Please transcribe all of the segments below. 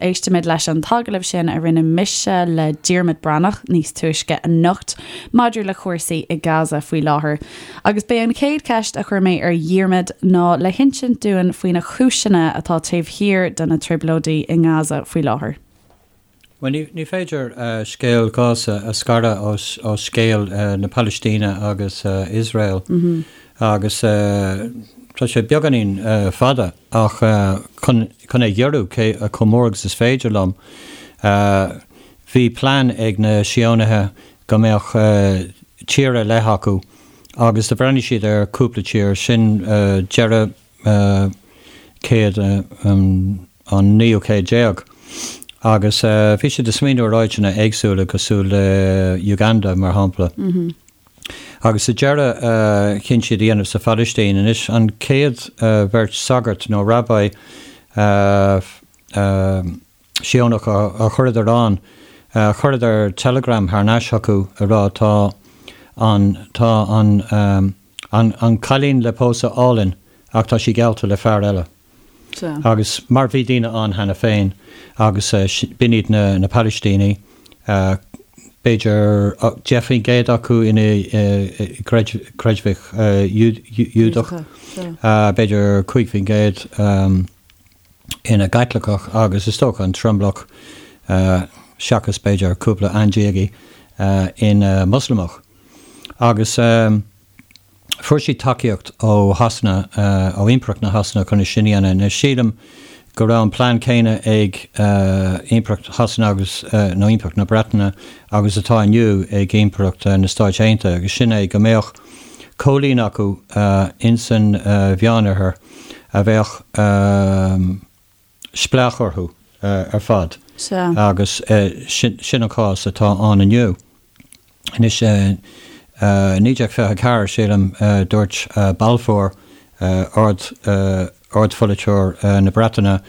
éistfimid leis an t-agallamh sin a rinne mise le Diarmuid Breathnach níos túisce anocht maidir le cúrsaí i Gaza faoi láthair. Agus b'é an chéad cheist a chuir mé ar Dhiarmuid ná le hinsint dúinn faoi na cúiseanna atá taobh thiar de na trioblóidí i nGaza faoi láthair. Bhuel, ní féidir scéal Ghaza a scaradh ó scéal na Palaistíne agus Iosrael agus tá sé beagáinín fada ach chun é ghiorrú chomh mór agus is féidir liom, bhí plean ag na Síónaithe go mbeadh tír ar leith acu agus do bhreathnaigh siad ar cúpla tír, sin deireadh céad an naoú céad déag agus bhí siad ag smaoineamh ar áiteanna éagsúla cosúil le Uganda mar shampla. Agus sa deireadh chinn siad a dhéanamh sa Phalaistín. Anois an chéad bheirt sagart nó rabbi Síónach a chuireadar ann, chuireadar teileagram thar n-ais chucu ag rá tá an, tá an, an, an cailín le pósadh álainn ach tá sí geallta le fear eile. Agus mar bhí daoine ann cheana féin agus b'in iad na, na Palaistínigh, b'fhéidir 10% acu ina gcreidmhigh Iúdach, b'fhéidir 5%, ina gCaitliceach agus is dócha an tromlach, seachas b'fhéidir cúpla aindiagaí, ina Moslamach. Agus fuair siad tacaíocht ó Shasana, ó Impireacht na Shasana chun é sin a dhéanamh. Anois sílim go raibh an plean céanna ag Impireacht Shasana agus, nó Impireacht na Breataine agus atá inniu ag Impireacht na Stáit Aontaithe agus sin é go mbeadh coilín acu insan Mheánoirthear a bheadh spleách orthu ar fad agus sin an cás atá ann inniu. Anois, 1924, sílim, dúirt Balfour, ard-pholaiteoir na Breataine,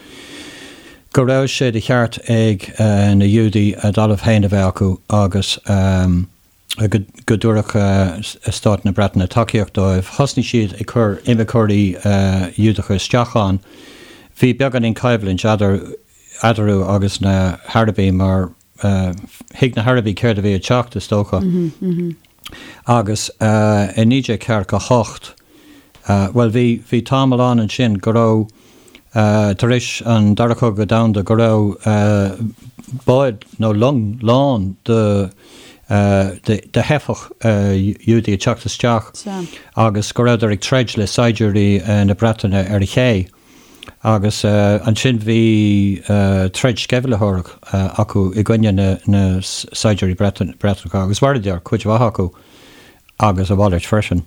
go raibh sé de cheart ag na Giúdaigh a dtalamh féin a bheith acu agus go dtabharfadh Stát na Breataine tacaíocht dóibh. Thosnaigh siad ag cur imirceoirí Iúdacha isteach ann. Bhí beagáinín coimhlint eadarthu agus na hArabaigh mar thuig na hArabaigh céard a bhí ag teacht, is dócha. Agus i 1948, bhuel bhí, bhí tamall ann ansin go raibh, tar éis an Dara Cogadh Domhanda, go raibh báid nó long lán de de theifeach Iúdaí ag teacht isteach agus go rabhadar ag troid le saighdiúirí na Breataine ar an ché agus ansin bhí troid sceimhlitheoireach acu i gcoinne na saighdiúirí Breatanacha agus mharaíodar cuid mhaith acu agus a mhalairt freisin.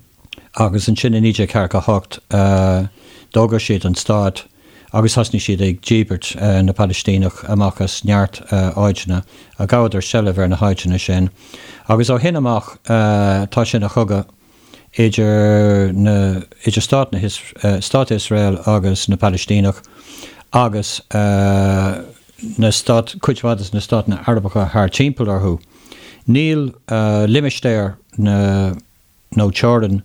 Agus ansin i 1948 d'fhógair siad an stát agus thosnaigh siad ag díbirt na Palaistíneach amach as neart áiteanna, ghabhadar seilbh ar na háiteanna sin. Agus ó shin amach tá sé ina chogadh idir na, idir stát na, stát Iosrael agus na Palaistíneach agus na stát, cuid mhaith de na státanna Arabacha thar timpeall orthu. Níl limistéar na. nó teorainn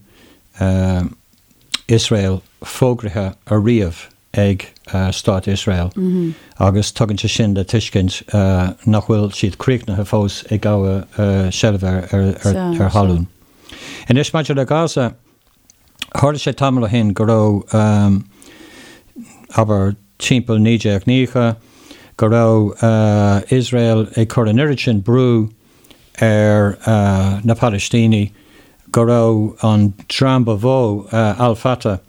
Iosrael fógraithe ariamh ag Stát Iosrael agus tugann sé sin le tuiscint nach bhfuil siad críochnaithe fós ag gabhadh seilbhe ar thalún. Anois maidir le Gaza, tharla sé tamall ó shin go raibh, abair timpeall 1990, go raibh Iosrael ag cur an oiread sin brú ar na Palaistínigh go raibh an dream ba mhó, Al Fatah,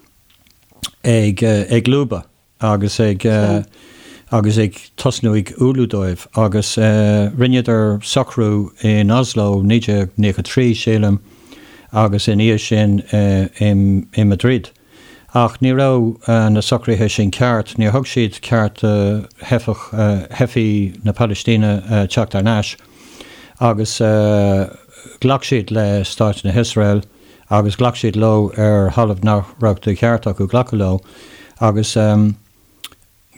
ag ag lúbadh agus ag agus ag tosnú ag umhlú dóibh agus rinneadar socrú in Oslo 1993, sílim, agus ina dhiaidh sin i Madrid. Ach ní raibh na socruithe sin ceart, níor thug siad ceart do theifeach, theifigh na Palaistíne teacht thar n-ais agus ghlac siad le Stáit na hIosrael agus ghlac siad leo ar thalamh nach raibh de cheart acu glacadh leo agus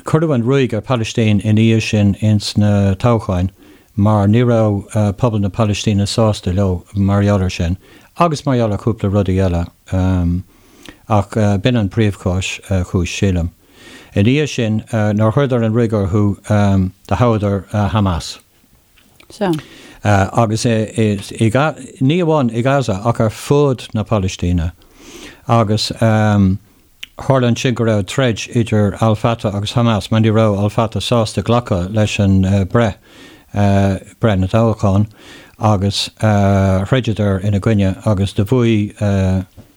Cuireadh an ruaig ar Palaistín ina dhiaidh sin ins na toghcháin mar ní raibh pobal na Palaistíne sásta leo mar gheall ar sin agus mar gheall ar chúpla rudaí eile ach b'in an príomhchúis, chúis, sílim. Ina dhiaidh sin, nuair a chuireadar an ruaig orthu, do thoghadar Hamas. Sea. Agus ní amháin i Gaza ach ar fud na Palaistíne. Agus tharla ansin go raibh troid idir Al Fatah agus Hamas mar ní raibh Al Fatah sásta glacadh leis an breith, breith na dtoghchán, agus throideadar ina gcoinne agus do bhuaigh,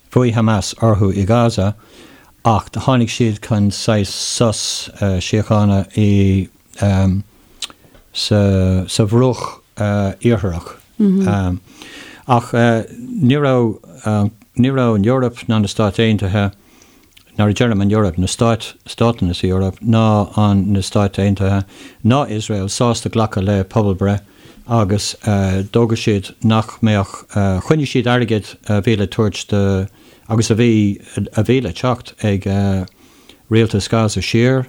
bhuaigh Hamas orthu i Gaza ach tháinig siad chun saghas sos síochána i sa Bhruach Iartharach. Ach ní raibh, ní raibh an Eoraip ná na Stáit Aontaithe, nuair a deirim an Eoraip, na stáit, státanna sa Eoraip, ná an, na Stáit Aontaithe, ná Iosrael sásta glacadh le pobalbhreith agus d'fhógair siad nach mbeadh, choinnigh siad airgead a bhí le tabhairt do, agus a bhí, a bhí le teacht ag rialtas Gaza siar.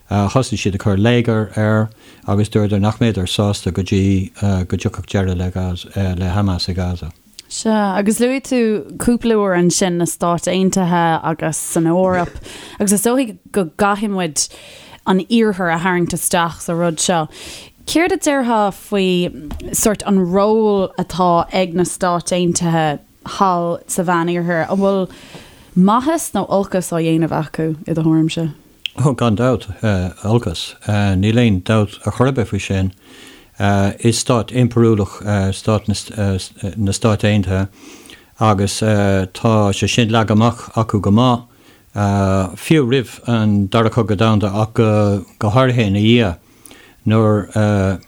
Thosaigh siad ag cur léigear air agus dúradar nach mbeadar sásta go dtí go dtiocfadh deireadh le Gaza, le Hamas i Gaza. Sea, agus luaigh tú cúpla uair ansin na Stáit Aontaithe agus an Eoraip, agus is dóigh go gcaithfidh muid an Iarthar a tharraingt isteach sa rud seo. Céard a déarfá faoi sórt an ról atá ag na Stáit Aontaithe thall sa Mheánoirthear? An bhfuil maitheas nó olcas á dhéanamh acu, i do thuairimse? Ó, gan dabht, olcas. Níl aon dabht ar chor ar bith faoi sin. Is stát impiriúlach stát na Stáit Aontaithe agus tá sé sin leagtha amach acu go maith, fiú roimh an Dara Cogadh Domhanda ach go háirithe ina dhiaidh nuair a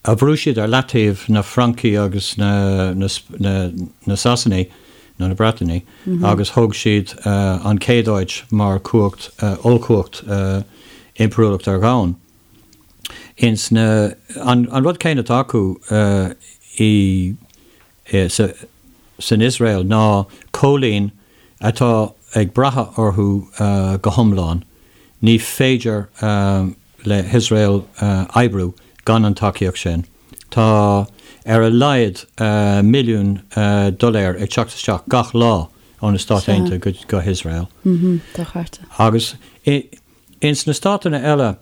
a bhrú siad ar leataobh na Francaigh agus na na Sasanaigh, nó na Breatanaigh, agus thóg siad an chéad áit mar chumhacht, ollchumhacht impiriúlacht ar dhomhan. Ins na, an rud céanna atá acu i, san Iosrael ná coilín atá ag brath orthu go hiomlán. Ní féidir le hIosrael oibriú gan an tacaíocht sin. Tá ar a laghad milliún doiléir ag teacht isteach gach lá ó na Stáit Aontaithe go hIosrael. Agus ins na státanna eile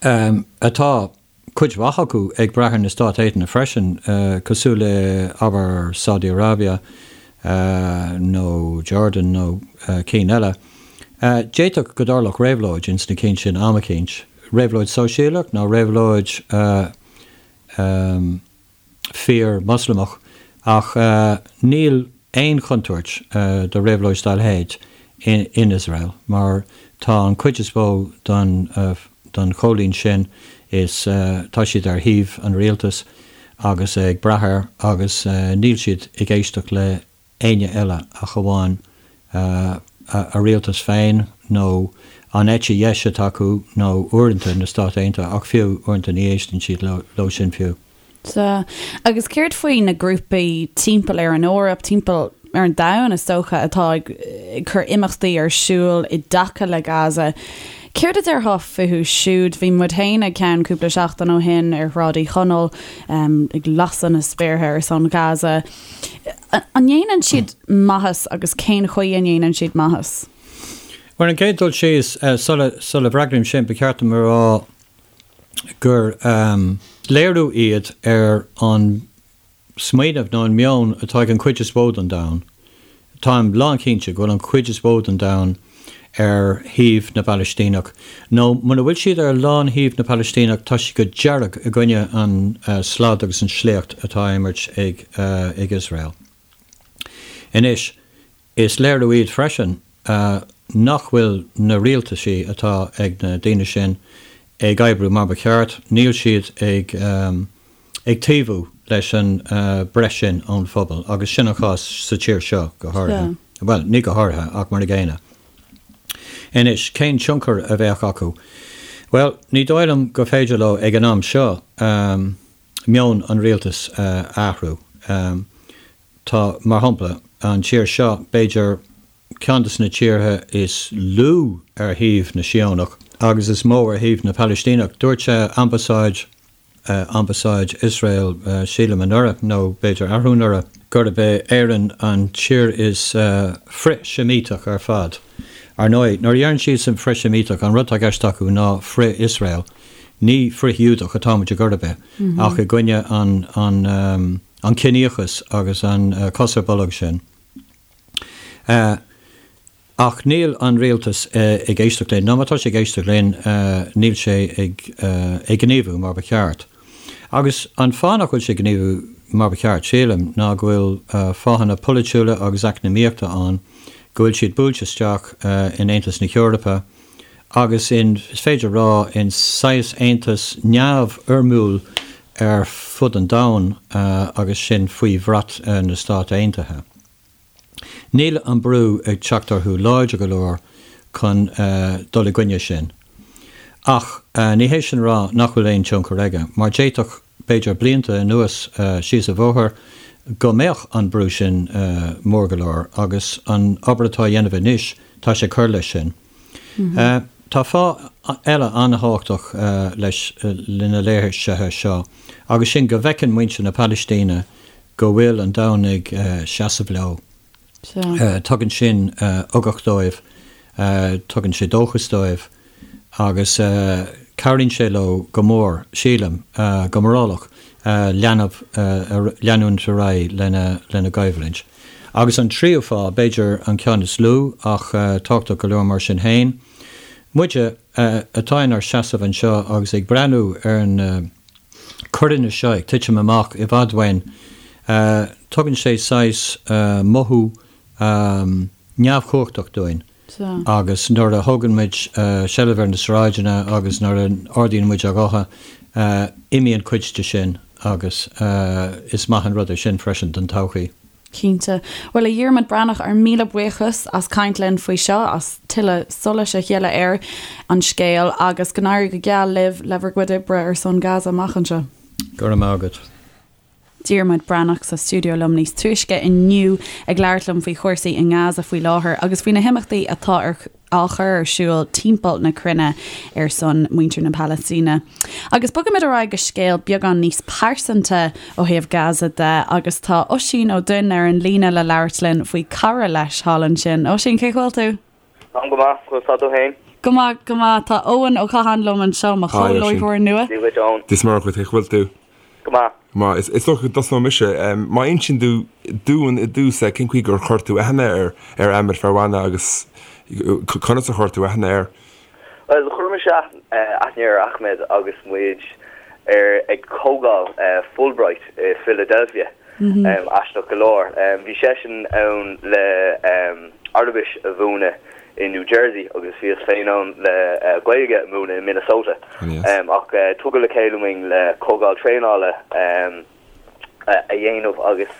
atá cuid mhaith acu ag brath ar na Stáit Aontaithe freisin, cosúil le, abair, Saudi Arabia nó Jordan nó cinn eile. D'fhéadfadh go dtarlódh réabhlóid ins na cinn sin am eicínt, réabhlóid sóisialach nó réabhlóid fíor-Mhoslamach, ach níl aon chontúirt do réabhlóid dá leithéid in Iosrael, mar tá an chuid is mó den den choilín sin, is tá siad ar thaobh an rialtais agus ag brath air agus níl siad ag éisteacht le éinne eile ach amháin a rialtas féin nó an eite dheis atá acu nó uaireanta na Stáit Aontaithe ach fiú uaireanta ní éisteann siad leo sin fiú. Sea. Agus céard faoi na grúpaí timpeall ar an Eoraip, timpeall ar an domhan is dócha, atá ag cur imeachtaí ar siúl i dtaca le Gaza? Céard a déarfá fúthu siúd? Bhí muid féin ag ceann cúpla seachtain ó shin ar Shráid Uí Chonaill ag lasadh na spéartha ar son Gaza. An ndéanann siad maitheas agus cén chaoi a ndéanann siad maitheas? Bhuel, an chéad dul síos, sula bhfreagraím sin, ba cheart dom a rá gur léiriú iad ar an smaoineamh nó an meon atá ag an chuid is mó den domhan. Táim lánchinnte go bhfuil an chuid is mó den domhan ar thaobh na bPalaistíneach, nó muna bhfuil siad ar lán-thaobh na bPalaistíneach, tá siad go dearg i gcoinne an slad agus an sléacht atá á imirt ag Iosrael. Anois, Is léiriú iad freisin nach bhfuil na rialtaisí atá ag na daoine sin ag oibriú mar ba cheart, níl siad ag ag taobhú leis an breith sin ón phobal agus sin an chás sa tír seo go háirithe. Bhuel, ní go háirithe ach mar a gcéanna. Anois, cén tionchar a bheadh acu? Bhuel, ní dóigh liom gur féidir leo ag an am seo meon an rialtais a athrú. Tá, mar shampla, an tír seo, b'fhéidir ceann de na tíortha is lú ar thaobh na Síónach agus is mó ar thaobh na Palaistíneach. Dúirt ambasáid, ambasáid Iosrael, sílim anuraidh nó b'fhéidir arú anuraidh, gurb é Éirinn an tír is frith-Seimíteach ar fad. Ar ndóigh, nuair a deireann siadsan frith-Sheimíteach, an rud atá i gceist acu ná frith-Iosrael, ní frith-Ghiúdach atá muid ar chor ar bith, ach i gcoinne an, an, an ciníochas agus an cos ar bolg sin. Ach níl an rialtas ag éisteacht linn, nó má tá sé ag éisteacht linn, níl sé ag gníomhú mar ba cheart. Agus an fáth nach bhfuil sé ag gníomhú mar ba cheart, sílim, ná go bhfuil fáthanna polaitiúla agus eacnamaíochta ann, go bhfuil siad buailte isteach in Aontas na hEorpa agus in, is féidir a rá, in saghas aontas neamhfhoirmiúil ar fud an domhain agus sin faoi bhrat na Stát Aontaithe. Níl an brú ag teacht orthu láidir go leor chun dul i gcoinne sin. Ach ní hé sin a rá nach bhfuil aon tionchar aige, mar d'fhéadfadh, b'fhéidir blianta anuas síos an bhóthar, go mbeadh an brú sin mór go leor agus an obair atá á dhéanamh anois, tá sé ag cur leis sin. Tá fáth eile an-thábhachtach leis na léirsithe seo agus sin go bhfeiceann muintir na Palaistíne go bhfuil an domhan ag seasamh leo. Tugann sin ugach dóibh, tugann sé dóchas dóibh agus cabhraíonn sé leo go mór, sílim, go morálach, leanamh, leanúint ar aghaidh lena gcoimhlint. Agus an tríú fáth, b'fhéidir an ceann is lú ach tábhachtach go leor mar sin féin, muide atá inár seasamh anseo agus ag breathnú ar na coireanna seo ag titim amach i bhfad uainn, tugann sé saghas mothú neamhchumhachtach dúinn agus nuair a thógann muid seilbh ar na sráideanna agus nuair a ardaíonn muid ár ngutha, imíonn cuid de sin agus is maith an rud é sin freisin don todhchaí. Cinnte. Bhuel, a Dhiarmaid Breathnach, ár míle buíochas as caint linn faoi seo, as tuilleadh solais a ghealladh ar an scéal agus go n-éirí go geal libh le bhur gcuid oibre ar son Gaza amach anseo. Go raibh maith agat. Diarmuid Breathnach sa stiúideo liom níos túisce inniu ag labhairt liom faoi chúrsaí i nGaza faoi láthair agus faoi na himeachtaí atá ar á chur ar siúl timpeall na cruinne ar son muintir na Palaistíne. Agus bogaimid ar aghaidh go scéal beagán níos pearsanta ó thaobh Gaza de agus tá Oisín Ó Duinn ar an líne le labhairt linn faoi cara leis thall ansin. Oisín, cén chaoi a bhfuil tú? Táim go maith, conas tá tú féin? Go maith, go maith. Tá Eoin Ó Catháin liom anseo, mo chomh-láithreoir nua. Dia dhuit, Eoin. Dia is Muire dhuit, cén chaoi a bhfuil tú? Go maith. Go maith. Is dócha go dtosnóidh mise. Má insíonn tú dúinn i dtús cén chaoi gur chuir tú aithne ar ar Ahmed Ferwana agus conas a chuir tú aithne air? Bhuel, chuir mise aithne ar Ahmed agus muid ar ag comhdháil Fulbright i Philadelphia, aisteach go leor. Bhí seisean ann le Araibis a mhúineadh i New Jersey agus bhíos féin ann le Gaeilge a mhúineadh i Minnesota. Ach tugadh le chéile muinn le comhdháil traenála a dhéanamh agus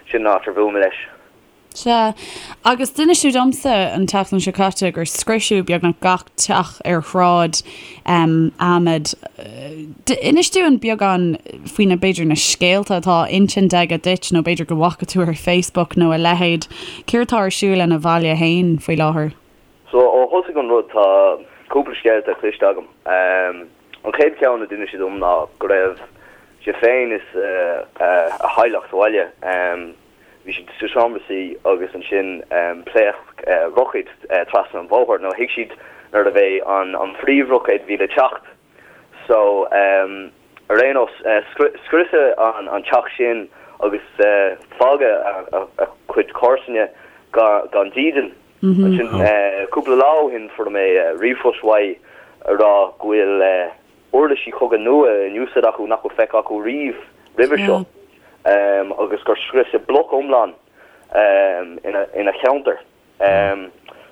sin an áit ar bhuail mé leis. Sea, agus d'inis tú domsa an tseachtain seo caite gur scriosadh beagnach gach teach ar shráid Ahmed. Inis dúinn beagán faoi na, b'fhéidir, na scéalta atá á insint aige duit nó b'fhéidir go bhfaca tú ar Facebook nó a leithéid. Céard atá ar siúl ina bhaile féin faoi láthair? So, ó thosaigh an rud tá cúpla scéalta cloiste agam. An chéad cheann a d'inis sé dom ná go raibh sé féin is a theaghlach sa bhaile. Bhí siad sa seomra suí agus ansin phléasc roicéad trasna an bhóthair. Nó thuig siad nuair a bhí an phríomhroicéad a bhí le teacht. So, ar aon nós, scriosadh an teach sin agus fágadh a chuid comharsana gan dídean. Ansin, cúpla lá ó shin fuair mé ríomhphost uaidh a rá go bhfuil uirlisí cogaidh nua in úsáid acu nach bhfuil feicthe acu riamh roimhe seo agus gur scriosadh bloc iomlán ina cheantar.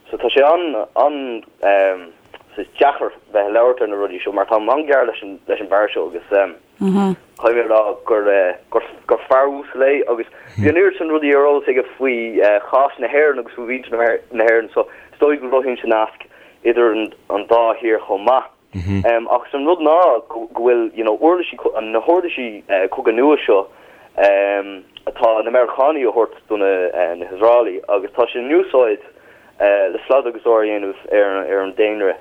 So tá sé an an-deacair bheith ag labhairt ar na rudaí seo mar táim an-ghar leis an leis an bhfear seo agus caithfidh mé a rá gur gur fear uasal é agus bhí an oiread sin rudaí ar eolas aige faoi chás na hÉireann agus faoi mhuintir na hÉireann so is dóigh go gcruthaíonn sé nasc idir an dá thír chomh maith. Ach an rud ná go bhfuil you know uirlisí, na huirlisí cogaidh nua seo atá na Meiriceánaigh a thabhairt do na hIosraelaigh agus tá sé in úsáid le slad agus ár a dhéanamh ar an daonra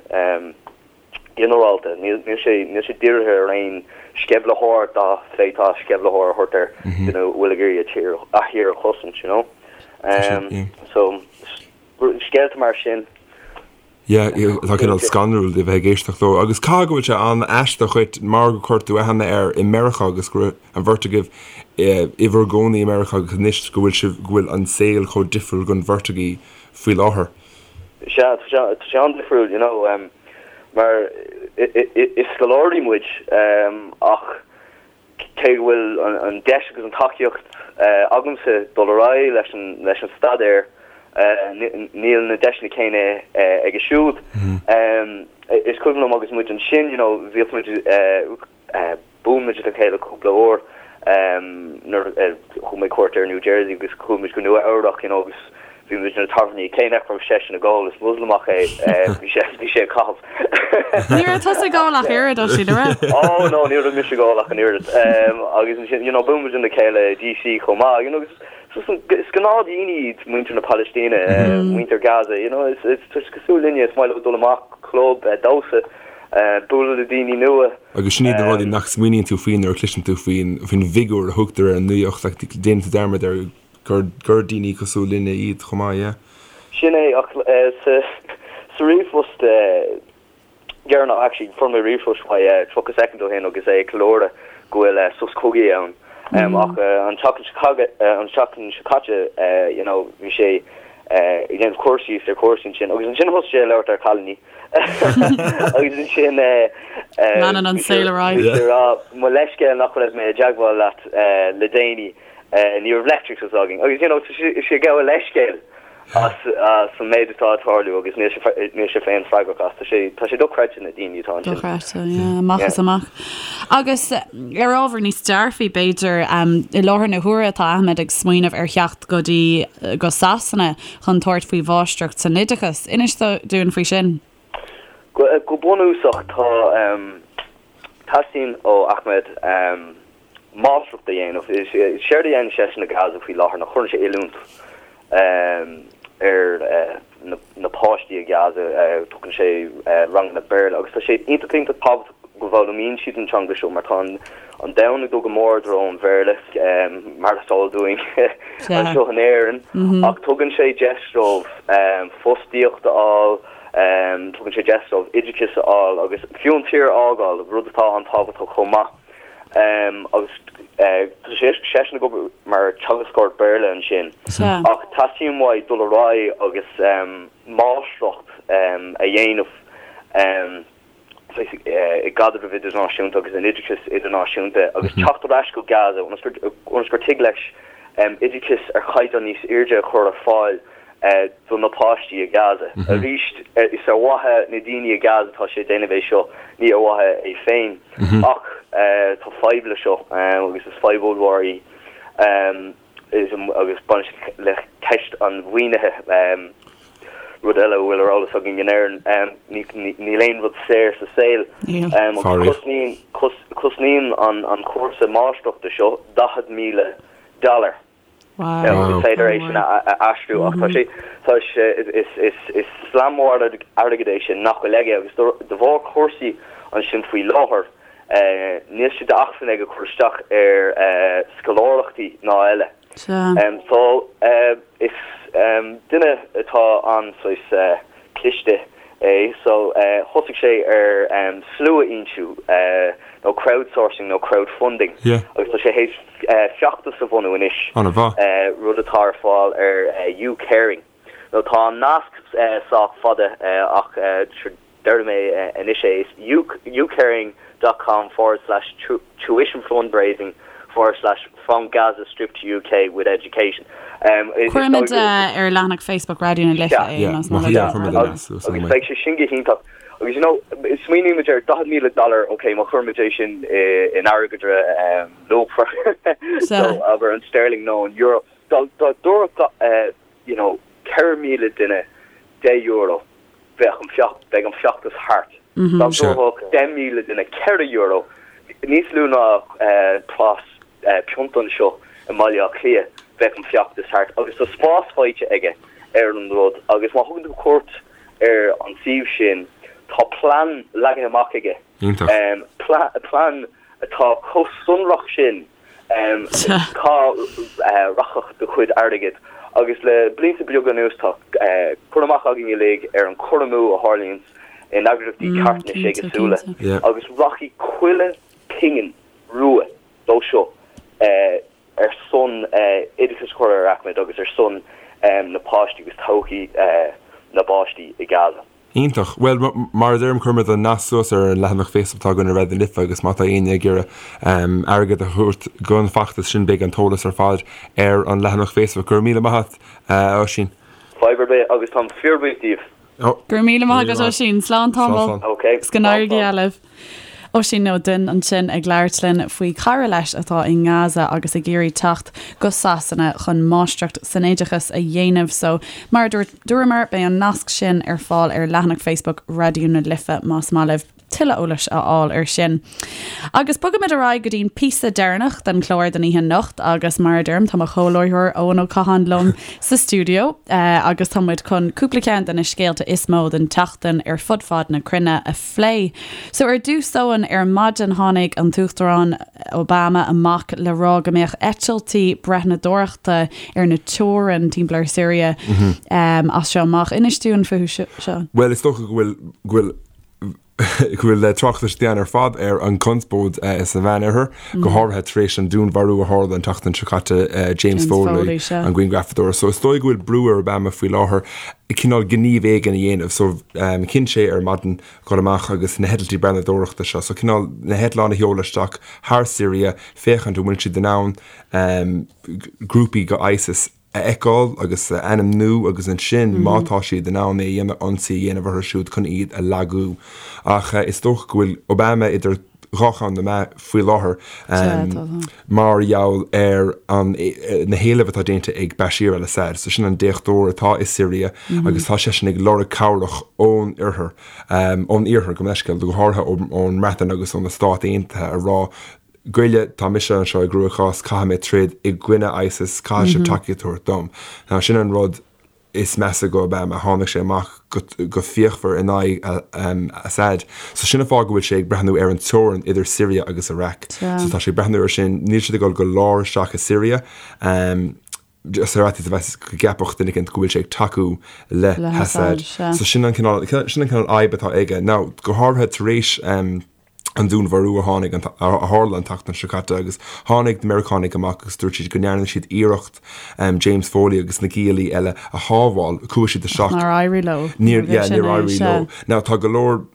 ginearálta. Níl sé níl sé dírithe ar aon sceimhlitheoir dá bhféadfá sceimhlitheoir a thabhairt air duine a bhfuil ag iarraidh a tír a thír a chosaint, you know. So scéalta mar sin. Yeah, tá cineál scanrúil de bheith ag éisteacht leo. Agus caithfidh go bhfuil sé an-aisteach dhuit mar gur chuir tú aithne air i Meiriceá agus go raibh an bheirt agaibh i bhur gcónaí i Meiriceá agus anois go bhfuil sibh, go bhfuil an saol chomh difriúil don bheirt agaibh faoi láthair. Sea, tá sé, tá sé an-difriúil, you know, mar is scoláirí muid ach cé go bhfuil an deis agus an tacaíocht agamsa dul ar aghaidh leis an leis an staidéar, níl na deiseanna céanna aige siúd. Is cuimhin liom agus muid ansin, you know, bhíodh muid, bhuail muid le chéile cúpla uair nuair a thug mé cuairt ar New Jersey agus chuaigh muid go Nua Eabhrac, you know, agus Bhí muid na tábhairní céanna ach raibh seisean ag ól, is Moslamach é, bhí sé, bhí sé ag caitheamh. Ní raibh tusa ag ól ach oiread, Oisín, an raibh? Oh no, ní raibh mise ag ól ach an oiread. Agus ansin, you know, bhuail muid le chéile i DC chomh maith, you know, agus is gnáthdhaoine iad muintir na Palaistíne, muintir Gaza, you know, is, is, tá siad cosúil linne, is maith leo dul amach, club, damhsa, bualadh le daoine nua. Agus sin iad na rudaí nach smaoiníonn tú faoi nuair a chloiseann tú faoin, faoin bhfigiúr a thugtar ar an nuacht, like, déanann tú dearmad ar gur gur daoine cosúil linne iad chomh maith, yeah. Sin é, ach sa sa ríomhphost dheireanach, actually, fuair mé ríomhphost uaidh 30 soicind ó shin agus é ag ceiliúradh go bhfuil sos cogaidh ann. Ach an tseachtain seo an tseachtain seo caite, you know, bhí sé ag déanamh cur síos ar chúrsaí ansin agus ansin thosaigh sé ag labhairt ar chailíní agus ansin Leanann an saol ar aghaidh. Bhí sé ag rá, mo leithscéal nach raibh mé i dteagmháil leat le déanaí. Ní raibh leictreachas againn agus you know tá sé ag gabháil leithscéil as as an méid atá ag tarlú agus níl sé níl sé féin freagrach as. Tá sé tá sé dochreidte na daoine atá ansin. Dochreidte, yeah, amach is amach. Agus ar ábhar níos dearfaí b'fhéidir, i láthair na huaire tá Ahmed ag smaoineamh ar theacht go dtí go Sasana chun tabhairt faoi mháistreacht san oideachas. Inis dúinn faoi sin. Go go bunúsach tá teastaíonn ó Ahmed máistreacht a dhéanamh. Séard a dhéanann seisean i Gaza faoi láthair ná cuireann sé oiliúint ar na páistí i Gaza, tugann sé ranganna Béarla agus tá sé iontach iontach tábhachtach go bhfoghlaimíonn siad an teanga seo mar tá an domhan ag dul go mór i dtreo an Bhéarla, mar is eol dúinn anseo in Éirinn, ach tugann sé deis dóibh fostaíocht a fháil, tugann sé deis dóibh oideachas a fháil agus fiú an tír a fhágáil, rud atá an-tábhachtach chomh maith. Agus tá seisean ag obair mar teagascóir Béarla ansin. Ach teastaíonn uaidh dul ar aghaidh agus máistreacht a dhéanamh i gcaidreamh idirnáisiúnta agus in oideachas idirnáisiúnta agus teacht ar ais go Gaza ionas gur tig leis oideachas ar chaighdeán níos airde a chur ar fáil do na páistí i Gaza. Arís, is ar mhaithe na daoine i Gaza atá sé ag déanamh é seo, ní ar mhaithe é féin. Ach tá fadhb le seo agus is fadhb ollmhór í agus baineann sé le ceist an mhaoinithe, rud eile a bhfuil ar eolas againn in Éirinn, níl aon rud saor sa saol. Agus cosnaíonn an cúrsa máistreachta seo 40,000 dollar. Wow. Is féidir é sin a aistriú ach tá sé tá sé is is is slam mór airgid é sin nach bhfuil aige agus de bharr cúrsaí ansin faoi láthair níl sé d'acmhainn aige cur isteach ar scoláireachtaí ná eile. So is duine atá an-saghas cliste é so thosaigh sé ar slua-fhoinsiú nó crowdsourcing nó crowdfunding agus tá sé théis feachtas a bhunú anois, rud atá ar fáil ar YouCaring. Nó tá an nasc sách fada ach déarfaidh mé anois é, is youcaring dot com forward slash tuition fundraising forward slash from Gaza Strip to UK with education. Cuirfimid ar leathanach Facebook Raidió na Life é más maith leat. Agus beidh sé sin go hiontach. Agus you know, smaoinímid ar 40,000 dollar, ok, má chuirimid é sin in airgeadra luachmhar, so abair an sterling nó an euro, dá dtabharfadh you know 4,000 duine €10, bheadh an feach, beidh an feachtas thart. Dá dtabharfadh 10,000 duine €4, níos lú ná praghas pionta anseo i mBaile Átha Cliath, bheadh an feachtas thart. Agus tá spás faighte aige ar an rud agus má thugann tú cuairt ar an suíomh sin, tá plean leagtha amach aige. Plean atá chomh sonrach sin. Cá rachadh do chuid airgid? Agus le blianta beaga anuas tá cur amach againn uilig ar an cur amú a tharlaíonns in eagraíochtaí carthanais éagsúla agus rachaidh chuile phingin rua dó seo ar son oideachas a chur ar Ahmed agus ar son na páistí agus todhchaí na bpáistí i Gaza. Iontach. Bhuel, mar a deirim, cuirfimid an nasc suas ar an leathanach Facebook atá againn ar Raidió na Life agus má tá éinne ag iarraidh airgead a thabhairt don fheachtas sin beidh an t-eolas ar fad ar an leathanach Facebook. Go raibh míle maith agat, a Oisín. Fadhb ar bith agus táim fíorbhuíoch díobh. Go raibh míle maith agat, Oisín. Slán tamall. Ok. Agus go n-éirí go geal libh. Oisín Ó Duinn ansin ag labhairt linn faoi chara leis atá i nGaza agus ag iarraidh teacht go Sasana chun máistreacht san oideachas a dhéanamh. So, mar a dúirt, dúramar, beidh an nasc sin ar fáil ar leathanach Facebook Raidió na Life más maith libh tuilleadh eolais a fháil ar sin. Agus bogaimid ar aghaidh go dtí'n píosa deireanach den chlár don oíche anocht agus mar a deirim tá mo chomhláithreoir Eoin Ó Catháin liom sa stiúideo agus tá muid chun cúpla ceann de na scéalta is mó den tseachtain ar fud fad na cruinne a phlé. So ar dtús Eoin, ar maidin tháinig an tUachtarán Obama amach le rá go mbeadh eitiltí breathnadóireachta ar na teorann timpeall ar Syria as seo amach. Inis dúinn fúthu seo. Bhuel is dócha go bhfuil go bhfuil go bhfuil tráchtas déanta ar fad ar an gconspóid sa Mheánoirthear, go háirithe tar éis an dúnmharú a tharla an tseachtain seo caite, James Foley, an grianghrafadóir. So is dóigh go bhfuil brú ar Obama faoi láthair cineál gníomh éigin a dhéanamh. So chinn sé ar maidin dhul amach agus na heitiltí breathnadóireachta seo, so cineál na heitleáin a sheoladh isteach thar Syria, féachaint an bhfuil siad in ann grúpaí go ISIS a fheiceáil agus a ainmniú agus ansin má tá siad in ann é a dhéanamh, ionsaí a dhéanamh orthu siúd chun iad a lagú. Ach is dócha go bhfuil Obama idir dhá cheann na meá faoi láthair mar gheall ar an na héilimh atá déanta ag Bashir al-Assad. So sin an déachtóir atá i Siria agus tá seisean ag lorg cabhrach ón oirthear, ón iarthar gabh mo leithscéal, go háirithe ón mBreatain agus ó na Stáit Aontaithe a rá Goile, tá mise anseo i gcruachás, caithfidh mé troid i gcoinne ISIS, caithfidh sibh tacaíocht a thabhairt dom. Now sin an rud is measa go Obama, tháinig sé amach go fíochmhar in aghaidh Assad. So sin an fáth go bhfuil sé ag breathnú ar an teorainn idir Syria agus Iraq. So tá sé ag breathnú ar sin, níl siad ag dul go lár isteach i Syria, just ar fhaitíos a bheas go gceapfadh duine éicint go bhfuil sé ag tacú le hAssad. So sin an cineál, sin an cineál fhadhb atá aige. Now, go háirithe tar éis an dúnmharú a tháinig, a tharla an tseachtain seo caite agus tháinig na Meiriceánaigh amach agus dúirt siad go ndearna siad iarracht James Foley agus na giallaí eile a shábháil. Chuaigh siad isteach. Nár éirigh leo. Níor, yeah, níor éirigh leo. Now tá go leor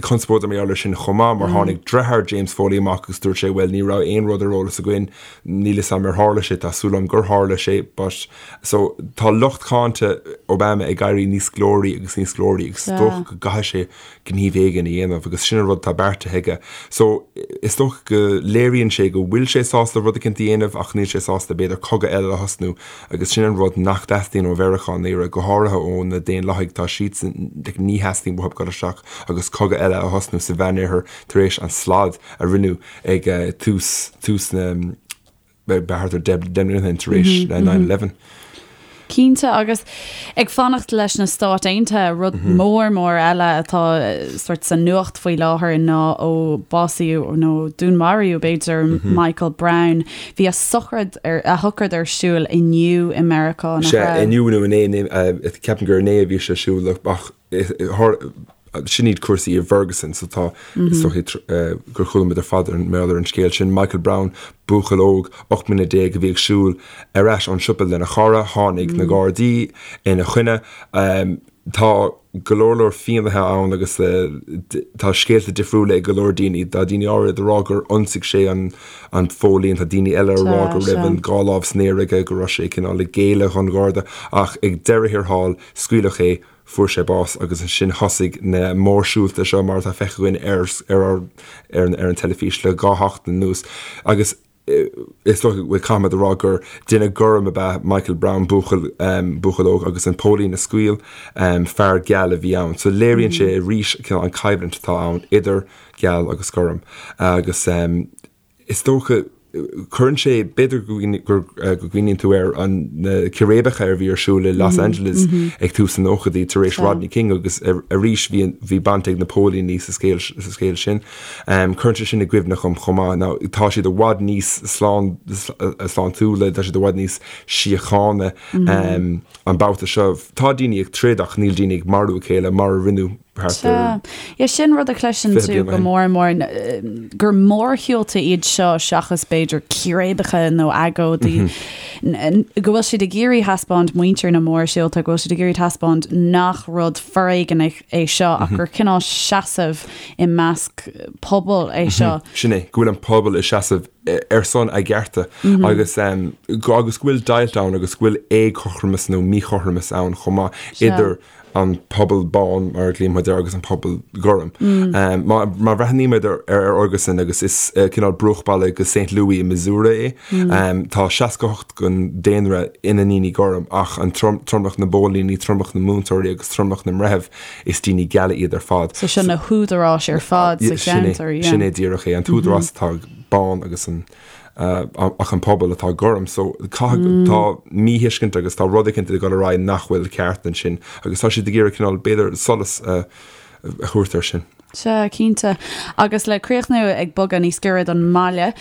conspóide mar gheall air sin chomh maith mar tháinig deartháir James Foley amach agus dúirt sé bhuel ní raibh aon rud ar eolas againn, níl fhios agam ar tharla sé, tá súil agam gur tharla sé but so tá lucht cáinte Obama ag éirí níos glóraí agus níos glóraí agus is dócha go gcaithfidh sé gníomh éigin a dhéanamh agus sin an rud atá beartaithe aige. So, is dócha go léiríonn sé go bhfuil sé sásta rud eicínt a dhéanamh ach níl sé sásta b'fhéidir cogadh eile a thosnú agus sin an rud nach dteastaíonn ó Mheiriceá i ndáiríre, go háirithe ó na Daonlathaigh, tá siadsan, like, ní theastaíonn uathu dul isteach agus cogadh eile a thosnú sa Mheánoirthear tar éis an slad a rinneadh ag tús, tús na. thart ar 10 mbliana ó shin tar éis 9/11. Cinnte, agus ag fanacht leis na Stáit Aontaithe, rud mór mór eile atá sort sa nuacht faoi láthair ná ó básaíodh nó dúnmaraíodh b'fhéidir Michael Brown. Bhí a sochraid ar a shocraid ar siúl inniu i Meiriceá, nach raibh? Sea, inniu nó inné, ceapaim gur inné a bhí sé ar siúl ach Sin iad cúrsaí i bhFerguson so tá, is dóichí gur chuala muid ar fad ar an ar an scéal sin. Michael Brown, buachaill óg, 18 mbliana a bhí ag siúl ar ais ón siopa lena chara, tháinig na Gardaí ina choinne. Tá go leor leor fianaithe ann agus tá scéalta difriúla ag go leor daoine. Tá daoine áirid ag rá gur ionsaigh sé an an póilín, tá daoine eile ag rá go raibh an dhá lámh san aer aige, go raibh sé cineál ag géilleadh don Gharda ach ag deireadh thiar thall scaoileadh é. Fuair sé bás agus ansin thosaigh na mórshiúlta seo mar atá feicthe againn ar ar ar an teilifís le dhá sheachtain anuas agus is dócha go bhfuil caithfimid a rá gur duine gorm ab ea Michael Brown, buachaill buachaill óg agus an póilín a scaoil fear geal a bhí ann. So léiríonn sé arís cineál an choimhlint atá ann idir geal agus gorm agus is dócha. Cuireann sé, b'fhéidir go gcuimhníonn tú ar an na círéibeacha a bhí ar siúl i Los Angeles ag tús na nóchaidí tar éis Rodney King agus arís bhí bhí baint ag na póilíní sa scéal sa scéal sin. Cuireann sé sin i gcuimhne dhom chomh maith. Now tá siad i bhfad níos slán sláintiúla, tá siad i bhfad níos síochána an babhta seo. Tá daoine ag troid ach níl daoine ag marú a chéile mar a rinneadh thart ar Yeah, sin rud a chloiseann 20 tú bliain go ó shin. mór mór, gur mórshiúlta iad seo seachas b'fhéidir círéibeacha nó agóidí, go bhfuil siad ag iarraidh thaispeáint muintir na mórshiúlta, go bhfuil siad ag iarraidh thaispeáint nach rud foréigeanach é seo ach gur cineál seasamh i measc pobail é seo. Sin é, go bhfuil an pobal ag seasamh ar son a gcearta agus agus go bhfuil deighilt ann agus go bhfuil éagothromas nó míchothromas ann chomh maith idir an pobal bán, mar a ghlaonn muid air, agus an pobal gorm. Má bhreathnaímid ar Ferguson, agus is cineál bruachbhaile go Saint Louis i Missouri é, tá 68 den daonra ina ndaoine gorm, ach an tromlach na bpóilíní, tromlach na múinteoirí agus tromlach na mbreitheamh, is daoine geala iad ar fad. So sin na húdaráis ar fad sa cheantar, yeah. Sin é díreach é, an t-údarás atá bán agus an ach an pobal atá gorm. So caithfidh, tá míthuiscint agus tá rud éicint ag dul ar aghaidh nach bhfuil ceart ansin agus tá siad ag iarraidh cineál, b'fhéidir, solas a thabhairt air sin. Sea, cinnte. Agus le críochnú ag bogadh níos giorra don mbaile,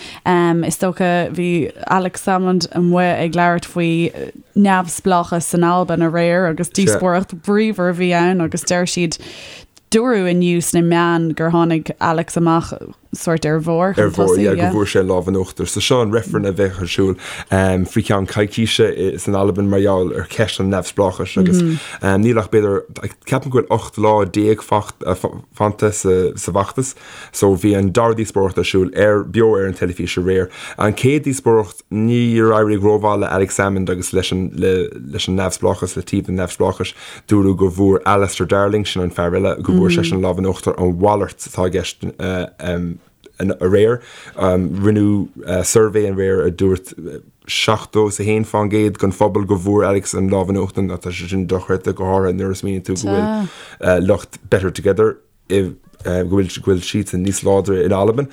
is dócha, bhí Alex Salmond amuigh ag labhairt faoi neamhspleáchas san Albain aréir agus díospóireacht bríomhar a bhí ann agus deir siad, dúradh inniu sna meáin gur tháinig Alex amach sórt ar bharr chun tosaigh, yeah, go bhfuair sé an lámh in uachtar. So seo an reifreann a bheadh ar siúl faoi cheann coicíse san Albain mar gheall ar cheist an neamhspleáchais agus níl ach b'fhéidir, ceapaim go bhfuil 18 lá fanta sa bhfeachtas. So bhí an dara díospóireacht ar siúl ar, beo ar an teilifís aréir. An chéad díospóireacht níor éirigh rómhaith le Alex Salmond agus leis an, leis an neamhspleáchas, le taobh an neamhspleáchais. Dúradh go bhfuair Alistair Darling, sin an fear eile, go bhfuair seisean an lámh in uachtar, an mhalairt atá i gceist aréir. Rinneadh suirbhé aréir a dúirt 71 fán gcéad den phobal go bhfuair Alex an lámh in uachtar, tá sé sin dochreidte, go háirithe nuair a smaoiníonn tú go bhfuil lucht Better Together i go bhfuil go bhfuil siadsan níos láidre in Albain.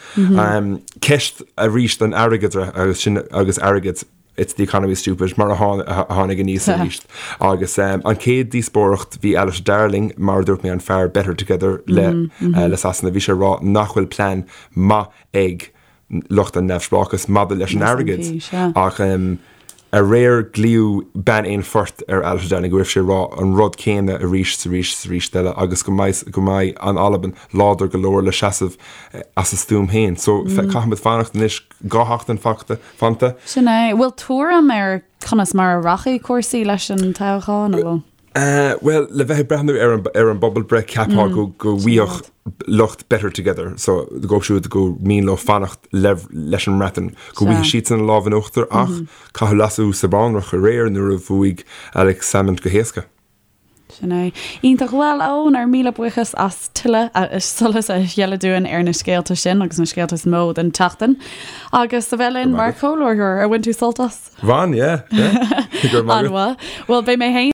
Ceist arís an airgeadra agus sin agus airgead it's the economy stupid mar a tháinig aníos arís. Agus an chéad díospóireacht bhí Alistair Darling, mar a dúirt mé an fear Better Together le le Sasana, bhí sé ag rá nach bhfuil plean maith ag lucht an neamhspleáchais maidir leis an airgead ach aréir glaodh bean aon phort ar Alistair Darling go raibh sé ag rá an rud céanna arís is arís is arís eile agus go mbeidh go mbeidh an Albain láidir go leor le seasamh as a stuaim féin. So caithfimid fanacht anois 2 sheachtain fanta. Sin é. Bhfuil tuairim ar conas mar a rachaidh cúrsaí leis an toghchán, an bhfuil? Bhuel, le bheith ag breathnú ar an ar an bpobalbhreith, cheapfá go go bhfaigheadh lucht Better Together, so dóibh siúd gur mian leo fanacht le leis an mBreatain, go bhfaighidh siadsan an lámh in uachtar ach caitheadh leasú sa bhunreacht aréir nuair a bhuaigh Alex Salmond go héasca. Sin é. Iontach. Bhuel, a Eoin, ár míle buíochas as tuilleadh solas a ghealladh dúinn ar na scéalta sin agus na scéalta is mó den tseachtain. Agus a bheith linn mar chomhláithreoir. Ar bhain tú sult as? Bhain, yeah, yeah. Go raibh maith agat. An-mhaith. Bhuel, beidh mé féin.